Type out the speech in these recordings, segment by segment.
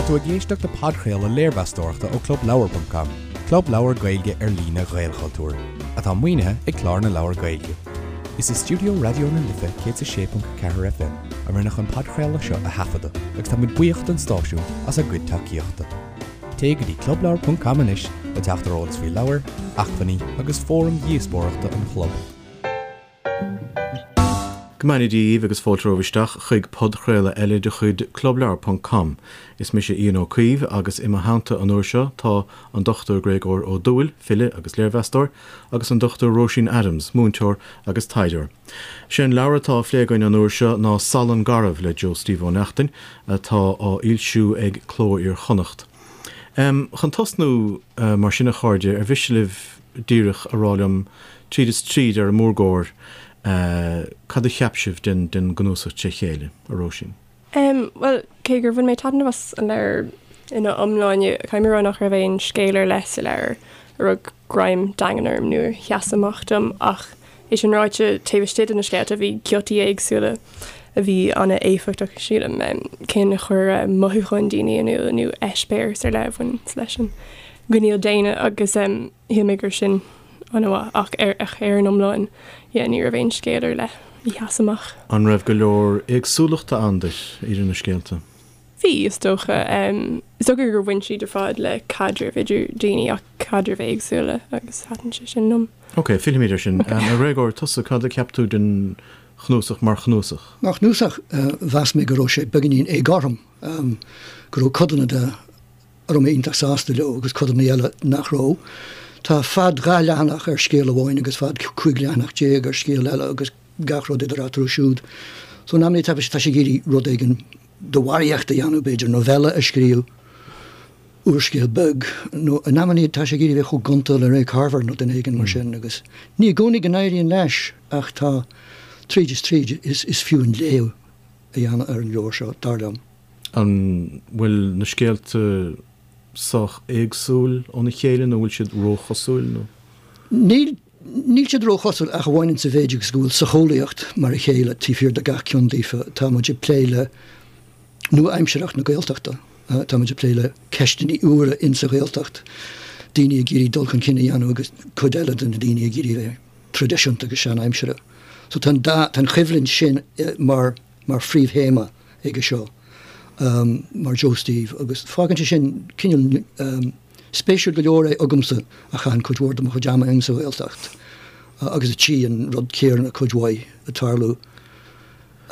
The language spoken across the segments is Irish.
tú ag éisteacht le podchraoladh léirmheastóireachta ó ClubLeabhar.com, club leabhar Gaeilge ar líne Ghaelchultúir, atá maoinithe ag Clár na Leabhar Gaeilge. Is i stiúideo Raidió na Life 106.4 FM a rinneadh an podchraoladh seo a thaifeadadh agus tá muid buíoch don stáisiún as a gcuid tacaíochta. Téigh go dtí clubleabhar.com anois le teacht ar eolas faoi leabhair, acmhainní agus fóraim dhíospóireachta an chlub. Go mbeannaí Dia dhaoibh agus fáilte romhaibh isteach chuig podchraoladh eile de chuid Clubleabhar ponc com. Is mise Ian Ó Caoimh agus i mo theannta an uair seo tá an Dr Gréagóir Ó Dúill, file agus léirmheastóir, agus an Dr Róisín Adams, múinteoir agus taighdeoir. Sé an leabhar atá á phlé againn an uair seo ná Salann Garbh le Joe Steve Ó Neachtain, atá á fhoilsiú ag Cló Iar-Chonnacht. Chun tosnú, mar sin a chairde, ar mhiste libh díreach a rá liom, tríd is tríd ar an mórgóir, cad a cheap sibh den gcnuasach tré chéile, a Róisín? Bhuel, cé gur bhain mé taitneamh as an leabhar ina iomláine, caithfidh mé a rá nach raibh aon scéal ar leith sa leabhar a rug greim daingean orm nó a sheas amach dom ach é sin ráite, taobh istigh de na scéalta bhí giotaí éagsúla a bhí an-éifeachtach, sílim, cinn a chuir mothúcháin daoine in iúl nó eispéireas ar leith a bhain leis an gcineál daonna agus shíl mé go raibh sin an-mhaith ach ar ar an iomlán, yeah, ní raibh aon scéal ar leith a sheas amach. An raibh go leor éagsúlachta ann duit idir na scéalta? Bhí, is dócha. Is dócha gur bhain siad ar fad le caidrimh idir daoine ach caidrimh éagsúla agus thaitin sé sin liom. Ok, fillfimid air sin. A Ghréagóir, tusa, cad a cheap tú den chnuasach mar chnuasach? Mar chnuasach, mheas mé go raibh sé beagáinín éagothrom, go raibh codanna de a raibh mé iontach sásta leo agus codanna eile nach raibh. Tá fad 2 leathanach ar scéal amháin agus fad 15 leathanach ar scéal eile agus gach rud idir eatarthu siúd. So in amannaí tá sé ag iarraidh rud éigin de bharraíocht a dhéanamh, b'fhéidir novella a scríobh, úrscéal beag, nó in amannaí tá sé ag iarraidh bheith chomh gonta le Ray Carver nó duine éigin mar sin agus ní i gcónaí go n-éiríonn leis ach tá, tríd is tríd, is fiú an léamh a dhéanamh ar an leabhar seo, dar liom. An bhfuil na scéalta sách éagsúil óna chéile nó an bhfuil siad róchosúil nó? Níl, níl siad róchosúil ach amháin insa mhéid agus go bhfuil socheolaíocht mar a chéile taobh thiar de gach ceann daofa. Tá muid ag plé le nua-aimsearthacht na Gaeltachta, tá muid ag plé le ceisteanna úra insa Ghaeltacht, daoine ag iarraidh dul chun cinn a dhéanamh agus cuid eile de na daoine ag iarraidh a bheith traidisiúnta agus sean-aimseartha. So tá an dá, tá an choimhlint sin mar, mar phríomhthéama aige seo mar Joe Steve agus fágann sé sin cineál spéisiúil go leor é agamsa a chaitheann cuid mhór de mo chuid ama insa Ghaeltacht agus a tchí an rud céanna cuid mhaith ag tarlú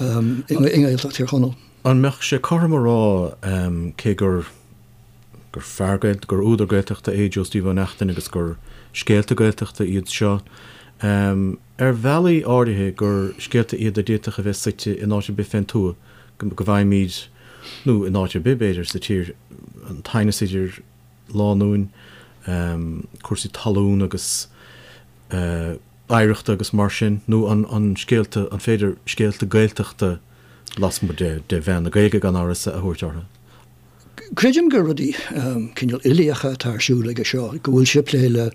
i nGaeltacht Thír Chonaill. An mbeadh sé cothrom a rá, cé gur gur fear Gaeltachta, gur údar Gaeltachta é Joe Steve Ó Neachtain agus gur scéalta Gaeltachta iad seo, ar bhealaí áirithe gur scéalta iad a d'fhéadfadh a bheith suite in áit ar bith fén tuath, go bhfaighimid, nó in áit ar bith, b'fhéidir, sa tír, an t-aighneas idir lánúin, cúrsaí talún agus oidhreachta agus mar sin, nó an scéalta, an féidir scéalta Gaeltachta lasmuigh de mheán na Gaeilge, gan amhras, a thabhairt orthu? Creidim gur rudaí cineál uilíocha atá ar siúl aige seo, go bhfuil sé ag plé le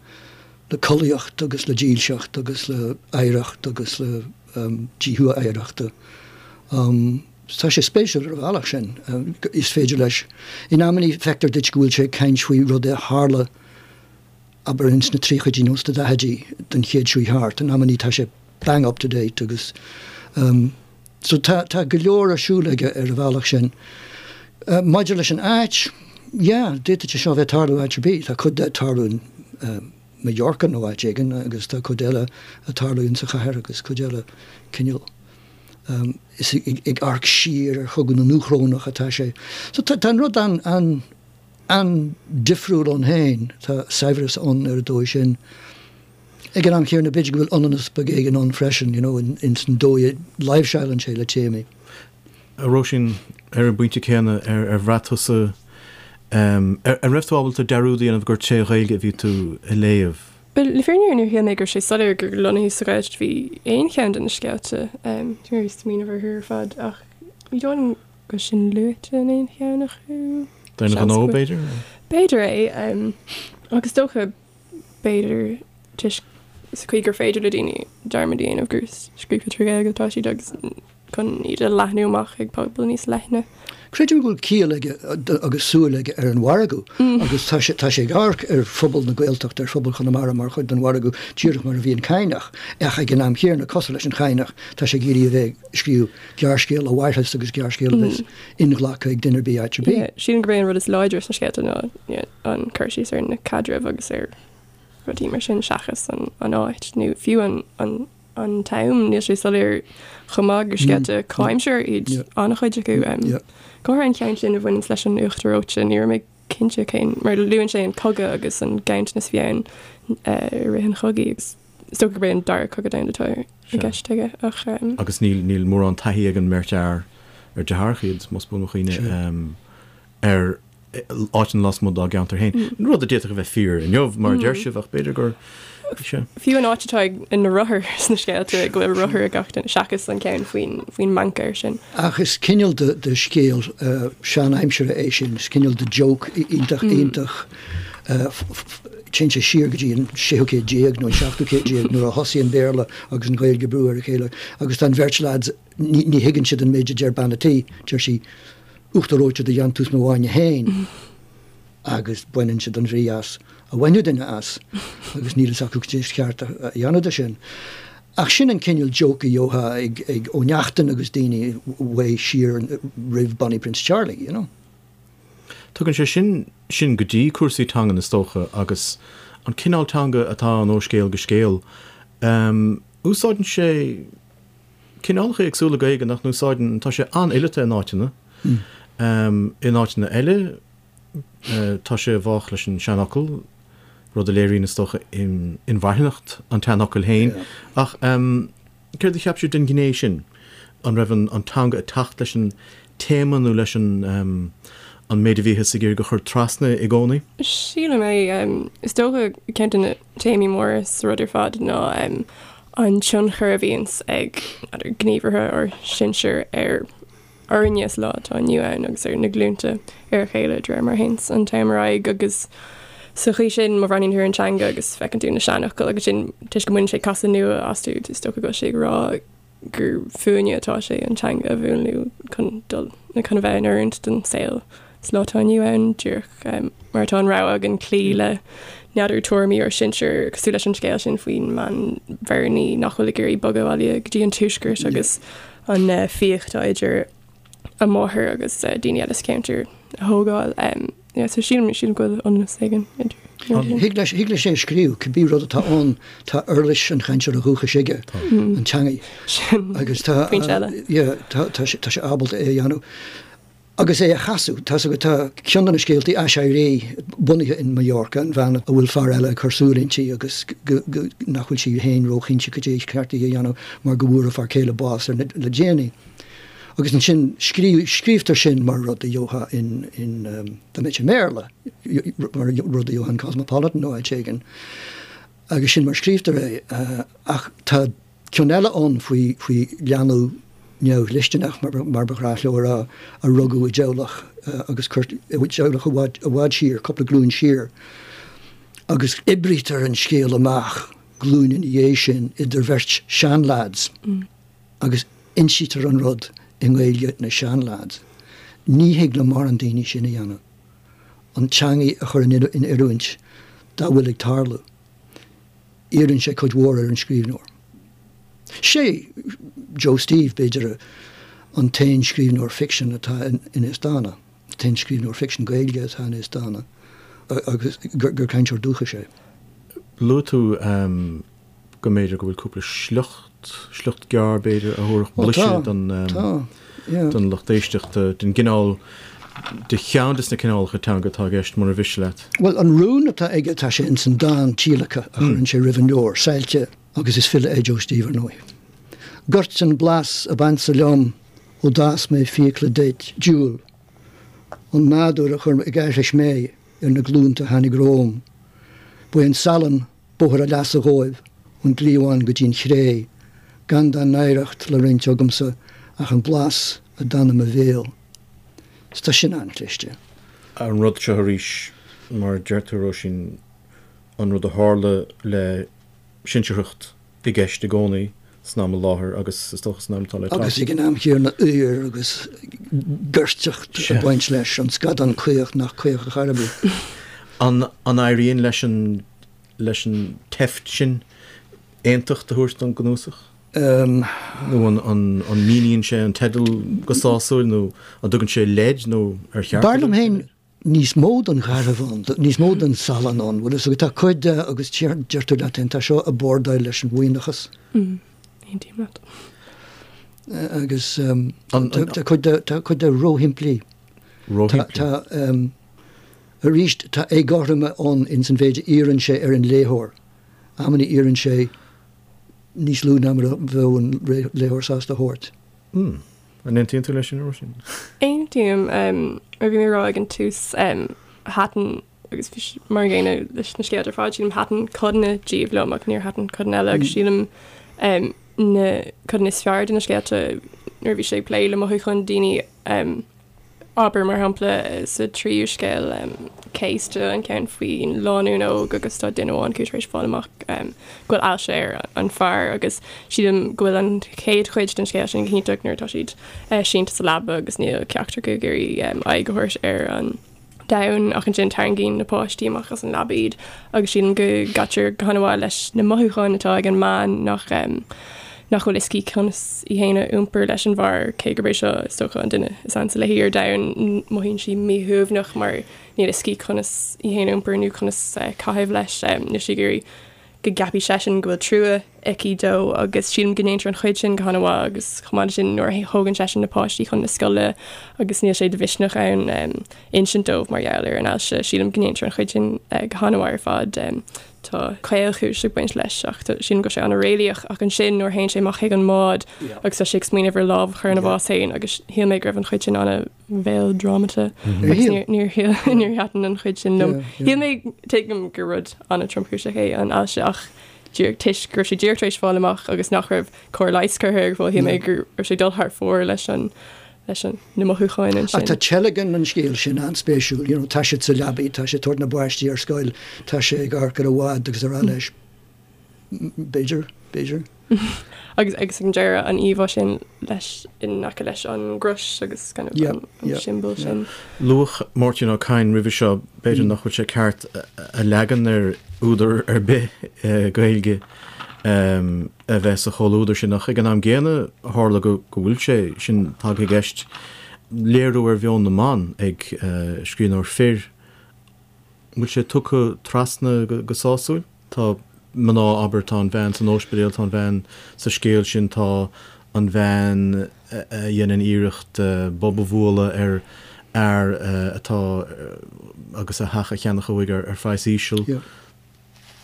collaíocht agus le dílseacht agus le hoidhreacht agus le díothú oidhreachta. Tá sé spéisiúil ar an bhealach sin. Is féidir leis, in amannaí feictear duit go bhfuil sé ag caint faoi rud a tharla, abair ins na tríochaidí nó sna daichidí den chéad seo thart, in amannaí tá sé bang up to date agus so tá tá go leor ar siúl aige ar an bhealach sin. Maidir leis an áit, yeah, d'fhéadfadh sé seo a bheith ag tarlú áit ar bith, tá cuid de ag tarlú in Mallorca nó áit éigin agus tá cuid eile ag tarlú insa chathair agus cuid eile cineál is ag amharc siar ar Chogadh na nDúchrónach atá sé. So tá tá an rud an an an-difriúil ann féin, tá saibhreas ann ar an dóigh sin. Ag an am chéanna, b'fhéidir go bhfuil ionannas beag éigin ann freisin, you know, ins an dóigh a láimhseálann sé le téamaí. A Róisín, ar an bpointe céanna, ar bhraith tusa, ar raibh tú ábalta dearúd a dhéanamh gur tré Ghaeilge a bhí tú a léamh? Bhuel, le fírinne níor shíl mé go raibh sé soiléir gur lonnaithe sa Ghaeltacht a bhí aon cheann de na scéalta. Tá mé ag smaoineamh orthu ar fad ach ní dóigh liom go raibh sin luaite in aon cheann acu. D'aon ghnó, b'fhéidir? B'fhéidir é. Agus is dócha b'fhéidir toisc sa chaoi gur féidir le daoine dearmad a dhéanamh gur scríofa trí Ghaeilge atá siad agus. chun iad a leathnú amach ag pobal níos leithne. Creidim go bhfuil ciall aige agus súil aige ar an mhargadh agus tá sé tá sé ag amharc ar phobal na Gaeltachta, ar phobal Chonamara mar chuid den mhargadh díreach mar a bhí an Cadhnach. Ach ag an am chéanna, cosúil leis an Chadhnach, tá sé ag iarraidh a bheith ag scríobh gearrscéal a mhairfeas agus gearrscéal a bheas inghlactha ag duine ar bith áit ar bith. Sílim gurb é an rud is láidre sna scéalta ná an cur síos ar na caidrimh agus ar rudaí mar sin seachas an áit nó fiú an an t-am, níl sé soiléir chomh maith gur scéalta comhaimseartha iad an-chuid acu. Go háirithe an ceann sin a bhaineanns leis an uachtar reoite, ní raibh mé cinnte cén, mar luann sé an cogadh agus an ganntanas a bhí ann i rith an chogaidh agus is dócha gurb é an Dara Cogadh Domhanda atá i gceist aige ach. Agus níl mórán taithí ag an mbeirt fhear ar deartháireacha iad, más buan mo chuimhne, ar áiteanna lasmuigh dá gceantar féin. Rud a d'fhéadfadh a bheith fíor inniu, mar a deir sibh, ach b'fhéidir gur. Sea. Fiú an áit atá ag na rothair sna scéalta, go bhfuil rothar ag gach duine, seachas an ceann faoin faoin mbancaer sin. Ach is cineál de de scéal sean-aimsire é sin, is cineál de joke iontach iontach téann sé siar go dtí an séú céad déag nó an seachtú céad déag nuair a thosaigh an Béarla agus an Ghaeilge ag brú ar a chéile agus tá an bheirt lads, ní ní thuigeann siad an méid a deir bean a' tí, deir sí, Uachtar reoite de dhéantús mo bhainne féin agus baineann siad an bhrí as a bhainfeadh duine as agus níl fhios acu cad é is ceart a dhéanamh de sin. Ach sin an cineál joke a gheofá ag ag Ó Neachtain agus daoine uaidh siar roimh Bonnie Prince Charlie, you know. Tugann sé sin sinn go dtí cúrsaí teangan is dócha agus an cineál teanga atá ann ó scéal go scéal. Úsáideann sé. cineálacha éagsúla Gaeilge nach n-úsáideann, tá sé an-fhileata in áiteanna. In áiteanna eile, tá sé i bhfách leis an seanfhocal, rud a léiríonn, is dócha, inmharthanacht an tseanfhocail féin. Ach céard a cheap sibh den ghné sin? An raibh an teanga ag teacht leis an téama nó leis an an méid a bhíothas ag iarraidh a chur trasna i gcónaí? Sílim é. Is dócha ceann de na téamaí móra sa rud ar fad ná an tionchar a bhíonns ag gníomhartha ár sinsear ar orainne sa lá atá inniu ann agus ar na glúnta ar a chéile de réir mar a théanns an t-am ar aghaidh agus sa chaoi sin má bhreathnaíonn tú ar an teanga agus feiceann tú na seanfhocail agus sin toisc go mbaineann sé casadh nua astu is dócha go bhfuil sé ag rá gur fúinne atá sé an teanga a mhúnlú chun dul nó chun a bheith in oiriúint don saol sa lá atá inniu ann, díreach mar atá an rogha againn cloí le n'fheadar tuairimí ár sinsear, cosúil leis an scéal sin faoin mbean Bhearnaí nach bhfuil ag iarraidh bogadh abhaile go dtí an tuaisceart agus an fiach atá idir a máthair agus daoine eile sa cheantar a thógáil. Yeah, so sílim, sílim go bhfuil ionannas éigin idir na rudaí. Thig leis, thig leis é a scríobh, cibé rud atá ann, tá uirlis an chainteora dhúchais aige, an teangaidh. Sin Agus tá, pointe eile. yeah, tá, tá sé, tá sé ábalta é a dhéanamh. Agus é a chasadh, tá's agat, tá ceann de na scéaltaí Aiséirí bunaithe in Mallorca, an bhean a bhfuil fear eile ag cur súil inti agus go, go, nach bhfuil sí féin róchinnte cad é is ceart di a dhéanamh mar go bhfuair a fear céile bás ar na, le déanaí. Agus ansin scríobhtar sin mar rud a gheofá in, in, dá mbeadh sé i mBéarla, mar rud a gheofá in Cosmopolitan nó áit éigin. Agus sin mar a scríobhtar é. Ach tá ceann eile ann faoi, faoi leanbh neamhdhlisteanach, mar ba ghnách leo a rá, a rugadh i dteaghlach agus cuir, i dteaghlach i bhfad, i bhfad siar, cúpla glúin siar. Agus oibrítear an scéal amach glúin ina dhiaidh sin idir bheirt seanleaids. Agus insítear an rud i nGaeilge na seanleaids. Ní thig le mórán daoine sin a dhéanamh. An teangaidh a chur in oiriúint dá bhfuil ag tarlú. Iarrann sé cuid mhór ar an scríbhneoir. Sé Joe Steve, b'fhéidir, an t-aon scríbhneoir ficsin atá in Aosdána, an t-aon scríbhneoir ficsin Gaeilge atá in Aosdána agus gur cainteoir dúchais é. Luaigh tú go mb'fhéidir go bhfuil cúpla sliocht, sliocht gearr b'fhéidir, a thabharfadh blaiseadh don don lucht éisteachta den gcineál, de cheann de na cineálacha teanga atá i gceist, mura mhiste leat. Bhuel, an rún atá aige, tá sé ins an dán tíolactha a chuireann sé roimh an leabhar, Saillte, agus is file é Joe Steve, ar ndóigh. Goirt an blas ab ansa liom ó d'fhás mé fiacla duit, diúl an nádúr a chuir ag aithris mé ar na glúnta a tháinig romham. Ba é an salann Bóthar a leasa dhóibh ón gcliabhán go dtí'n chré, gan dá n-oidhreacht le roinnt agamsa ach an blas a d'fhan i mo bhéal. 'S tá sin an-chliste. An rud seo arís, mar a deir tú, Róisín, an rud a tharla le sinsearthacht i gceist i gcónaí. san am i láthair agus is dócha san am atá le teacht. Agus ag an am chéanna aoir agus goirteacht ag baint leis, an scadán caoch nach caoch ar chor ar bith. An éiríonn leis an leis an tseift sin aontacht a thabhairt don gcnuasach? Nó an an míníonn sé an teideal go sásúil nó an dtugann sé leid nó ar cheart B'fhearr liom féin níos mó den gharbh ann, níos mó den salann ann, bhfuil a fhios agat, tá cuid de agus deir tú leat féin, tá seo ag bordáil leis an mhaoithneachas. Aontaím leat. Agus tá cuid de, tá cuid de róshimplí. Róshimplí. Tá, arís, tá éagothroime ann ins an mhéid a iarrann sé ar an léitheoir. Amannaí iarrann sé níos lú ná mar a bheadh an léitheoir sásta a thabhairt. An aontaíonn tú leis sin, a Róisín? Aontaím. Mar a bhí mé ag rá ag an tús, thaitin, agus bhí sé mar an gcéanna leis na scéalta ar fad, sílim, thaitin codanna díobh liom ach níor thaitin codanna eile agus sílim na codanna is fearr de na scéalta nuair a bhí sé ag plé le mothúcháin daoine, Abair, mar shampla, sa tríú scéal, Céasta, an ceann faoin lánúin óg agus tá duine amháin acu tar éis fáil amach go bhfuil ailse ar an fear agus sílim go bhfuil an chéad chuid den scéal sin go hiontach nuair atá siad sínte sa leaba agus níl ceachtar acu ag iarraidh aghaidh a thabhairt ar an domhan ach ansin tarraingíonn na páistí amach as an leaba iad agus sílim go gcaitear go han-mhaith leis na mothúcháin atá ag an mbean nach nach bhfuil fhios aici conas í féin a iompar leis an bhfear, cé gurb é seo is dócha an duine is ansa léi ar domhan, mothaíonn sí míshuaimhneach mar níl fhios aici conas í féin a iompar nó conas caitheamh leis, níl sí ag iarraidh go gceapfaidh seisean go bhfuil trua aici dó agus sílim go ndéantar an chuid sin go han-mhaith agus chomh maith leis sin nuair a thógann seisean na páistí chun na scoile agus níl sé de mhisneach ann insint dóibh mar gheall ar an ailse, sílim go ndéantar an chuid sin go han-mhaith ar fad. Tá caolchúis ag baint leis ach sílim go bhfuil sé an-réalaíoch ach ansin nuair a théann sé amach chuig an mbád agus tá sé ag smaoineamh ar lámh a chur ina bhás féin agus shíl mé go raibh an chuid sin ana mhéaldrámata agus níor níor níor thaitin an chuid sin liom. Shíl mé tuigim gur rud an-tromchúiseach é an ailse ach díreach toisc go raibh sé díreach tar éis fáil amach agus nach raibh cóir leighis curtha ar fáil, shíl mé go raibh sé ag dul thar fóir leis an leis an na mothúcháin ansin. Ach tá teilgean an scéil sin an-spéisiúil, you know, tá siad sa leabaidh, tá sé ag tabhairt na bpáistí ar scoil, tá sé ag amharc ar an bhád agus araile leis. B'fhéidir, b'fhéidir. Agus agus ag an deireadh an íomhá sin leis in aice leis an gcrois agus kind of Yeah, an an yeah, siombail yeah. sin. Luadh Máirtín Ó Cadhain roimhe seo, b'fhéidir nach bhfuil sé ceart a leagan ar údar ar bith Gaeilge a bheith sa chomhluadar sin ach ag an am gcéanna tharla go bhfuil sé sin tagtha i gceist, léiriú ar mheon na mban ag scríbhneoir fir. An bhfuil sé tugtha trasna go sásúil? Tá mná, abair, tá an bhean san óispidéal, tá an bhean sa scéal sin, tá an bhean a dhéanann iarracht bob a bhualadh ar fhear atá agus a theach a cheannach uaidh ar phraghas íseal.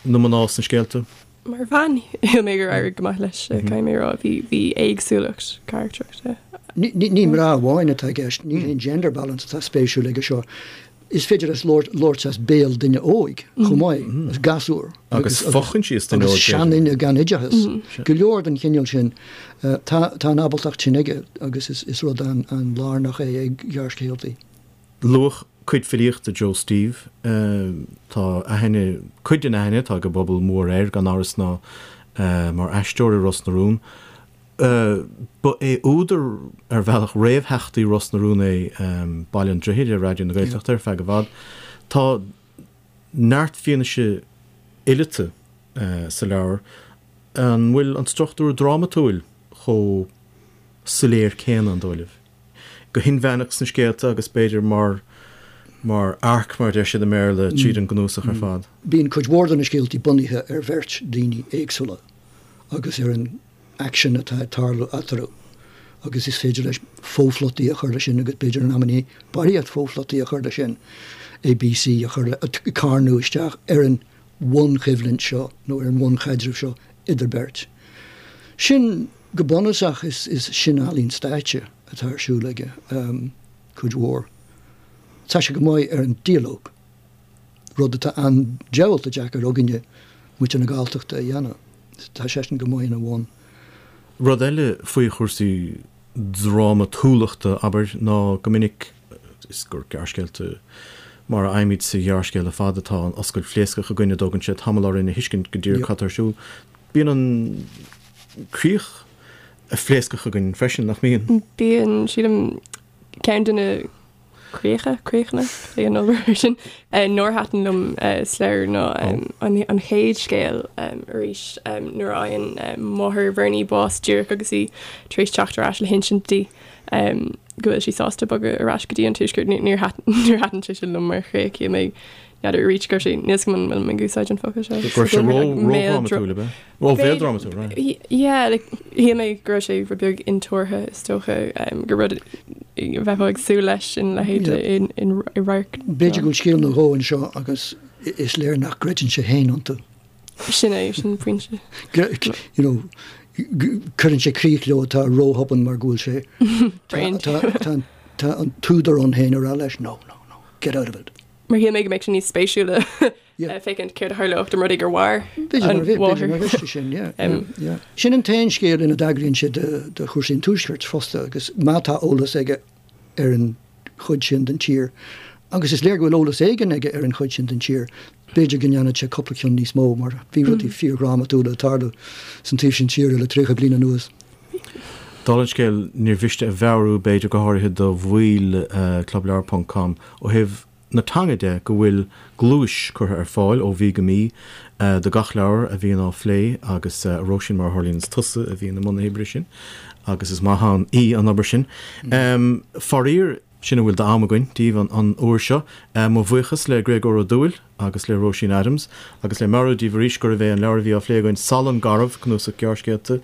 Na mná sna scéalta. Mar bhean, shíl mé gur éirigh go maith leis, caithfidh mé a rá. Bhí, bhí éagsúlacht carachtrachta. Ní mná amháin atá i gceist, ní haon gender balance atá spéisiúil aige seo. Is féidir leis labhairt as béal duine óig chomh maith, as gasúr. Agus fochoinsias duine óig. Agus seanduine gan oideachas. Go leor den chineál sin. Tá an ábaltacht sin aige agus is rud an-lárnach é ag gearrscéaltaí. Luadh cuid filíochta Joe Steve. Tá aithne, cuid den aithne atá ag an bpobal mór air, gan amhras ná mar aisteoir i Ros na Rún. Ba é údar, ar bhealach, réamhtheachtaí Ros na Rún é Baile an Droichid ar Raidió na Gaeltachta ar feadh i bhfad. Tá neart fianaise fhileata sa leabhar. An bhfuil an struchtúr drámatúil chomh soiléir céanna, an dóigh libh? Go hinmheánach sna scéalta agus b'fhéidir mar mar arc, mar a deir siad i mBéarla, tríd an gcnuasach ar fad. Bíonn cuid mhór de na scéaltaí bunaithe ar bheirt daoine éagsúla agus ar an aicsean atá ag tarlú eatarthu agus is féidir leis fophlotaí a chur leis sin agus b'fhéidir in amannaí barraíocht fophlotaí a chur leis sin, A, B, C a chur le, carnadh isteach ar an bhunchoimhlint seo nó ar an bhunchaidreamh seo idir beirt. Sin, go bunúsach, is sin ealaín stáitse atá ar siúl aige, cuid mhór. Tá sé go maith ar an dialóg. rud atá an-diabhalta deacair againne, muintir na Galltachta, a dhéanamh. Tá seisean go maith ina bhun. Rud eile faoi chúrsaí drámatúlachta, abair, ná go minic is gur gearrscéalta mar a fhaighimid sa ghearrscéal ar fad atá an oscailt phléascach againn a dtógann sé tamall orainn a thuiscint go díreach cad tá ar siúl. Bíonn an. críoch phléascach againn freisin, nach mbíonn? Bíonn, sílim, ceann de na críocha, críochanna, cé an obair sin, nár thaitin liom sa leabhar ná an chéad scéal arís nuair a fhaigheann máthair Bhernie bás díreach agus í tar éis teacht ar ais le hinsint di go bhfuil sí sásta bogadh ar ais go dtí an Tuaisceart. Níor thaitin sé sin liom mar chríoch. Shíl mé, n'fheadar arís go raibh sé, níl 'fhios agam an bhfuil mé ag úsáid an focal seo. Go raibh sé ró-dhrámatúil, ab ea? Ró-mhéaldrámatúil, right. Yeah, like, shíl mé go raibh sé rud beag intuartha, is dócha, gur rud a bheifeá ag súil leis ina leithéid i radharc. B'fhéidir go bhfuil scéal nó dhó anseo agus is léir nach gcreideann sé féin iontu. Sin é, sin pointe. You know, cuireann sé críoch leo atá róthobann mar go bhfuil sé, tá an t-údar ann féin ag rá leis, no, no, no, get out of it. Mar shíl mé go mbeadh sé níos spéisiúla féachaint céard a tharlódh dá mba rud é gur mhair an mháthair. Sin, yeah, yeah. Sin an t-aon scéal ina dtagraíonn sé do chúrsaí an Tuaiscirt fosta agus má tá eolas aige ar an chuid sin den tír, agus is léir go bhfuil eolas éigin aige ar an chuid sin den tír, b'fhéidir go ndéanfadh sé cúpla ceann níos mó mar bhí rudaí fíordhrámatúla ag tarlú san taobh sin tíre le 30 bliain anuas. Dála an scéil, níor mhiste a mheabhrú, b'fhéidir, go háirithe do bhaill Clubleabhar ponc com, ó thaobh na teanga de, go bhfuil gluais curtha ar fáil ó mhí go mí do gach leabhar a bhíonn á phlé agus, a Róisín, mar a tharlaíonn is tusa a bhíonn i mbun na hoibre sin agus is maith ann í an obair sin. Faraor, sin a bhfuil d'am againn daoibh an uair seo. Mo bhuíochas le Gréagóir Ó Dúill agus le Róisín Adams agus le meabhrú daoibh arís gurbh é an leabhar a bhí á phlé againn, Salann Garbh, cnuasach gearrscéalta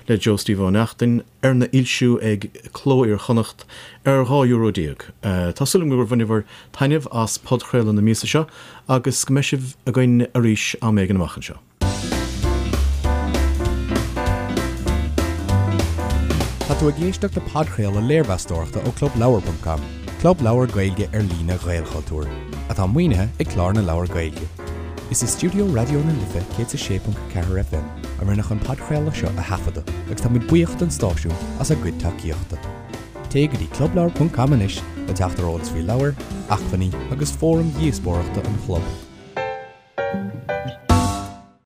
le Joe Steve Ó Neachtain, arna fhoilsiú ag Cló Iar-Chonnacht ar 12 euro. Tá súil agam gur bhaineabhair taitneamh as podchraoladh na míosa seo agus go mbeidh sibh againn arís am éigin amach anseo. Tá tú ag éisteacht le podchraoladh léirmheastóireachta ó ClubLeabhar.com, club leabhar Gaeilge ar líne Ghaelchultúir, atá maoinithe ag Clár na Leabhar Gaeilge. Is i stiúideo Raidió na Life 106.4 FM a rinneadh an podchraoladh seo a thaifeadadh agus tá muid buíoch don stáisiún as a gcuid tacaíochta. Téigh go dtí clubleabhar.com anois le teacht ar eolas faoi leabhair, acmhainní agus fóraim dhíospóireachta an chlub.